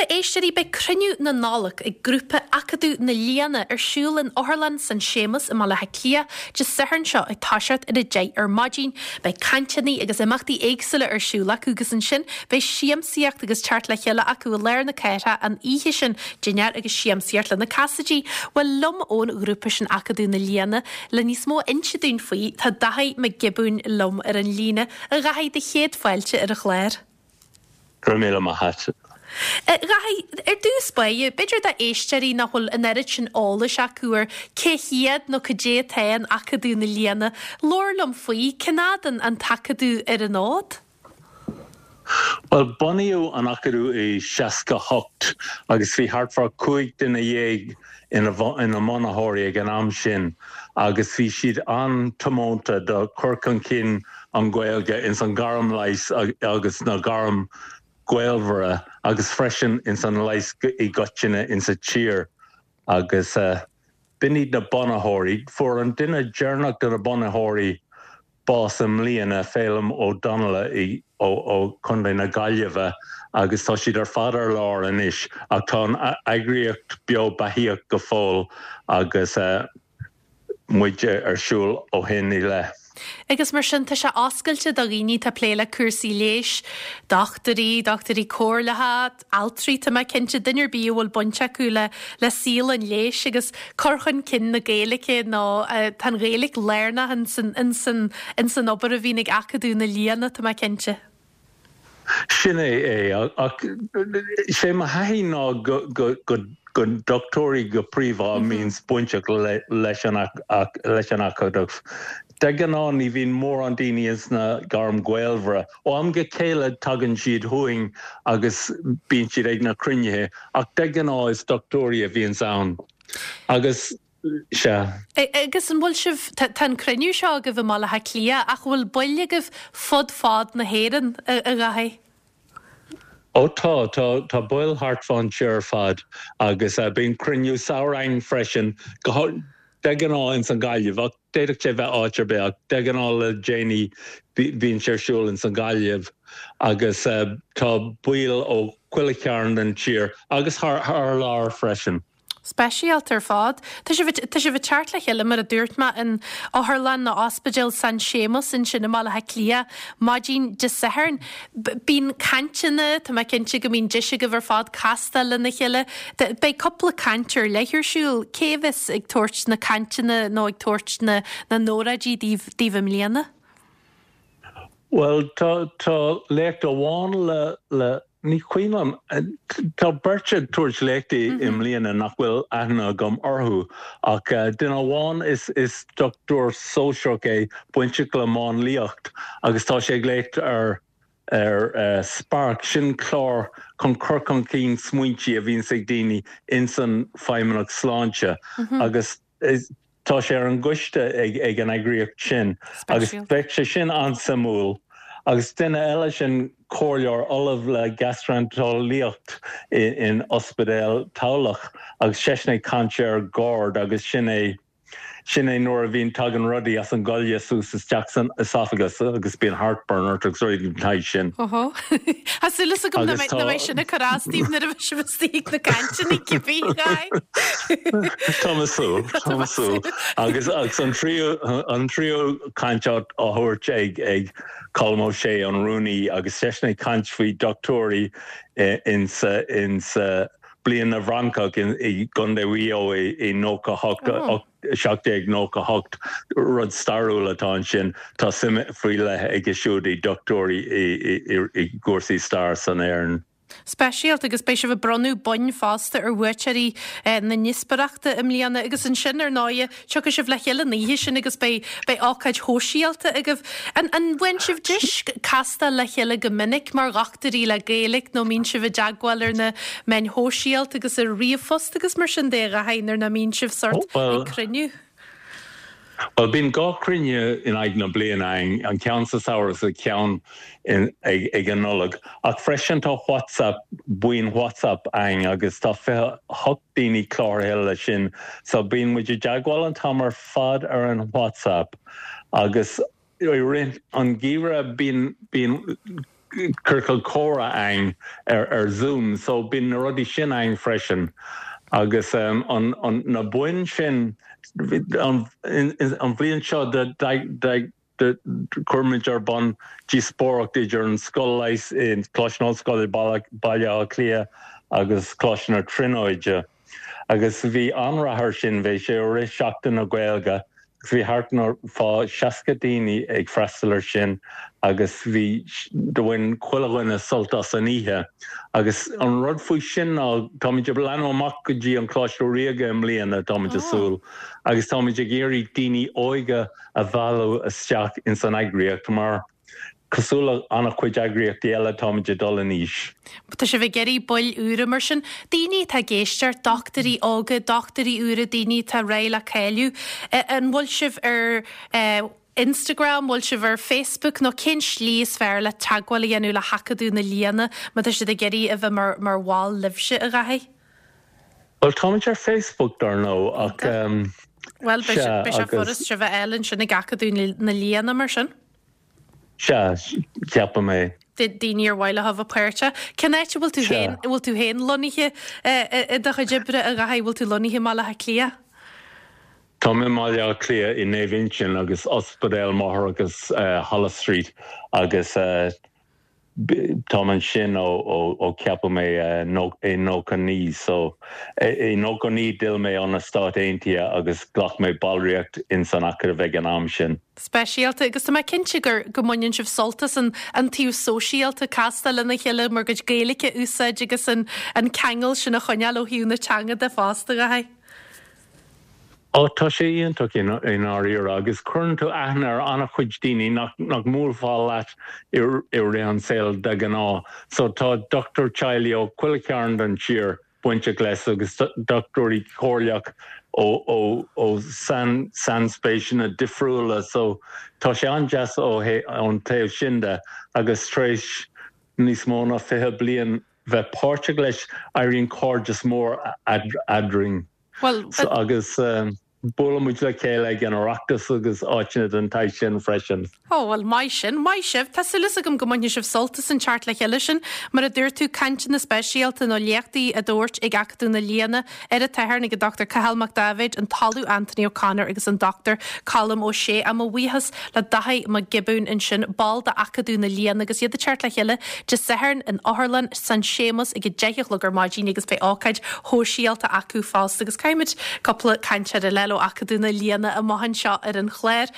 éisteoirí, beidh cruinniú na Nollag ag grúpa Acadamh na Lianna ar siúl in Otharlann San Séamas i mBaile Átha Cliath Dé Sathairn seo ag toiseacht ar 10 ar maidin. Beidh cainteanna agus imeachtaí éagsúla ar siúl acu agus ansin beidh siamsaíocht agus teacht le chéile acu i lár na cathrach an oíche sin, dinnéar agus siamsaíocht le na Casaidigh. Bhuel, liom ón ghrúpa sin Acadamh na Lianna le níos mó a inse dúinn faoi, tá Daithí Mac Giobúin liom ar an líne. A Dhaithí, do chéad fáilte ar an chlár. Go raibh míle maith a't. A Dhaithí, ar dtús báire, b'fhéidir do éisteoirí nach bhfuil an oiread sin eolais acu ar cé hiad nó cad é atá in Acadamh na Lianna, labhair liom faoi, cén fhad an an tAcadamh ar an fhód? Bhuel, bunaíodh an Acadamh i 68 agus bhí thart fá 15 duine ina ina mbunaitheoirí ag an am sin agus bhí siad an-tiomanta do chur chun cinn an Ghaeilge ins an gairm leighis agus na gairm gaolmhara agus freisin ins an leigheas i gcoitinne ins a tír agus b'in iad na bunaitheoirí. Fuair an duine deireanach de na bunaitheoirí bás i mbliana, Féilim Ó Donnaile ó Chontae na Gaillimhe agus tá siad ar fad ar lár anois ach tá an eagraíocht beo beathaíoch go fóill agus muid ar siúl ó shin i leith. Agus mar sin, tá sé oscailte do dhaoine atá ag plé le cúrsaí leighis, dochtúirí, dochtúirí comhairleacha, altraí, tá mé cinnte, duine ar bith a bhfuil baint acu le le saol an leighis agus cur chun cinn na Gaeilge nó tá an Ghaeilge lárnach ins an ins an ins an obair a bhíonn ag Acadamh na Lianna, tá mé cinnte. Sin é é, ach sé mo thaithí ná go go go go dochtúirí go príomha a mbíonns bainteach leis an leis an Acadamh. De ghnáth ní bhíonn mórán daoine ins na gairm gaolmhara. Ó am go chéile tagann siad chugainn agus bíonn siad ag na cruinnithe ach de ghnáth is dochtúirí a bhíonns ann. Agus, sea. Agus an bhfuil sibh, tá an cruinniú seo agaibh i mBaile Átha Cliath ach an bhfuil baill agaibh fud fad na hÉireann, a Dhaithí? Ó tá, tá, tá baill thart fán tír ar fad agus bíonn cruinniú samhraidh againn freisin, go, de ghnáth ins an Ghaillimh ach d'fhéadfadh sé bheith áit ar bith ach de ghnáth le déanaí bíonn sé ar siúl ins an Ghaillimh agus tá baill ó chuile chearn den tír agus thar, thar lear freisin. Speisialta ar fad. Tá sibh, tá sibh ag teacht le chéile, mar a dúirt mé, in Otharlann nó Ospidéal San Séamus ansin i mBaile Átha Cliath maidin Dé Sathairn. Bíonn cainteanna, tá mé cinnte go mbíonn deis agaibh ar fad castáil lena chéile. Beidh cúpla caint ar leith ar siúl. Cé a bheas ag tabhairt na cainteanna nó ag tabhairt na na n-óráidí daoibh, daoibh i mbliana? Bhuel, tá, tá léacht amháin le, le, ní cuimhin liom, tá beirt ag tabhairt léachtaí i mbliana nach bhfuil aithne agam orthu, ach duine amháin is, is dochtúir sóisearach é, bainteach le máinliacht agus tá sé ag léacht ar, ar Spark, sin clár chun cur chun cinn smaointí a bhíonns ag daoine ins an Feidhmeannacht Sláinte agus Tá sé ar an gcoiste ag an eagraíocht sin agus bheadh sé sin an-suimiúil. Agus duine eile sin comhairleoir ollamh le gastreinteolaíocht in Ospidéal Tamhlacht agus seisean ag caint ar GORD agus sin é sin é nuair a bhíonn tagann rudaí as an goile suas isteach san esophagus agus bíonn heartburn ort agus rudaí den tsaghas sin. Óhó. Tá súil agam nach mbeidh sin ag cur as daoibh nuair a bheidh sibh istigh ag na cainteanna cibé, a Dhaithí. Tá mé ag súil, tá mé ag súil. Agus agus an tríú an tríú caint á thabhairt ag ag Colm Ó Sé, an rúnaí, agus seisean ag caint faoi dochtúirí insa insa Bliain na bhFrancach i gContae Mhaigh Eo i 98, 1798, rud stairiúil atá ansin. Tá suim faoi leith aige siúd i dochtúirí i gcúrsaí stair san Éirinn. Speisialta agus beidh sibh ag bronnadh boinn fosta ar bhuaiteoirí na ndíospóireachta i mbliana agus ansin ar ndóighe tiocfaidh sibh le chéile an oíche sin agus beidh beidh ócáid shóisialta agaibh. An an bhfaigheann sibh deis castáil le chéile go minic mar dhochtúirí le Gaeilge nó mbíonn sibh i dteagmháil ar na meáin shóisialta agus ar ríomhphost agus mar sin de a Dhaithí nuair nach mbíonn sibh sort ag cruinniú? Bhuel, bíonn 2 chruinniú in aghaidh na bliana againn, an ceann sa samhradh is an ceann ag an Nollaig. Ach freisin tá WhatsApp, buíon WhatsApp againn agus tá 28 daoine cláraithe leis sin. So bíonn muid i dteagmháil an t-am ar fad ar an WhatsApp agus i rith an gheimhridh bíonn, bíonn. ciorcal comhrá ann ar ar Zoom so bíonn na rudaí sin ann freisin agus an an na boinn sin an an bhliain seo chuir muid ar bun díospóireacht idir an Scoil Leighis i Coláiste na hOllscoile Baile Átha Cliath agus Coláiste na Tríonóide agus bhí an-rath air sin, bhí sé i rith Seachtain na Gaeilge agus bhí thart fá 60 daoine ag freastal air sin agus bhí, do bhain chuile dhuine sult as an oíche. Agus an rud faoi sin ná táimid ag leathnú amach go dtí an Coláiste Ríoga i mbliana, táimid ag súil, agus táimid ag iarraidh daoine óga a mhealladh isteach ins an eagraíocht mar cosúil le an-chuid eagraíochtaí eile táimid ag dul in aois. Tá sibh ag iarraidh baill úra mar sin, daoine atá ag éisteacht, dochtúirí óga, dochtúirí úra, daoine atá réidh le cáiliú. An bhfuil sibh ar Instagram, bhfuil sibh ar Facebook nó cén slí is fearr le teagmháil a dhéanamh le hAcadamh na Lianna má tá siad ag iarraidh a bheith mar mar bhall libhse, a Dháithí? Bhuel, táimid ar Facebook, dar ndóigh, ach Bhuel, beidh sea, sé furast sibh a fháil ansin ag Acadamh na Lianna, mar sin. Sea, ceapaim é. Daoine ar mhaith leo a bheith páirteach. Cén áit a bhfuil tú féin, a bhfuil tú féin lonnaithe i do chuid oibre, a Dháithí? Bhfuil tú lonnaithe i mBaile Átha Cliath? Táim i mBaile Átha Cliath i Naomh Uinseann agus Ospidéal Máithreachais Holles Street agus Táim ansin ó ceapadh mé i 99 so i 99 d'fhill mé ó na Stáit Aontaithe agus ghlac mé ballraíocht ins an Acadamh ag an am sin. Speisialta agus tá mé cinnte gur go mbaineann sibh sult as an an taobh sóisialta, castáil lena chéile bhur gcuid Gaeilge a úsáid agus an an ceangal sin a choinneáil ó thaobh na teanga de fosta, a Dháithí. Ó, tá sé iontach i ndáiríre agus cuireann tú aithne ar an-chuid daoine nach nach mbuailfeá leat i rith an saoil de ghnáth. So tá dochtúir teaghlaigh ó chuile chearn den tír bainteach leis agus dochtúirí comhairleach ó ó ó sain sainspéiseanna difriúla. So tá sé an-deas ó ón taobh sin de agus tar éis níos mó ná 20 bliain bheith páirteach leis éiríonn cairdeas mór eadrainn. Bhuel, Agus buaileann muid le chéile ag an Oireachtas agus áiteanna den tsaghas sin freisin. Ó, bhuel, maith sin. Maith sibh. Tá súil agam go mbainfidh sibh sult as an teacht le chéile sin. Mar a dúirt tú, cainteanna speisialta nó léachtaí á dtabhairt ag Acadamh na Lianna ar an tSatharn ag an Dr Cathal Mac Daibhéid, an tOllamh Anthony O'Connor agus an Dr Colm Ó Sé. Á, mo bhuíochas le Dáithí Mac Giobúin ansin, ball d'Acadamh na Lianna agus iad ag teacht le chéile Dé Sathairn in Otharlann San Séamus ag 10 a chlog ar maidin agus beidh ócáid shóisialta acu fosta agus caithfimid cúpla cainteoir eile ó Acadamh na Lianna amach anseo ar an chlár.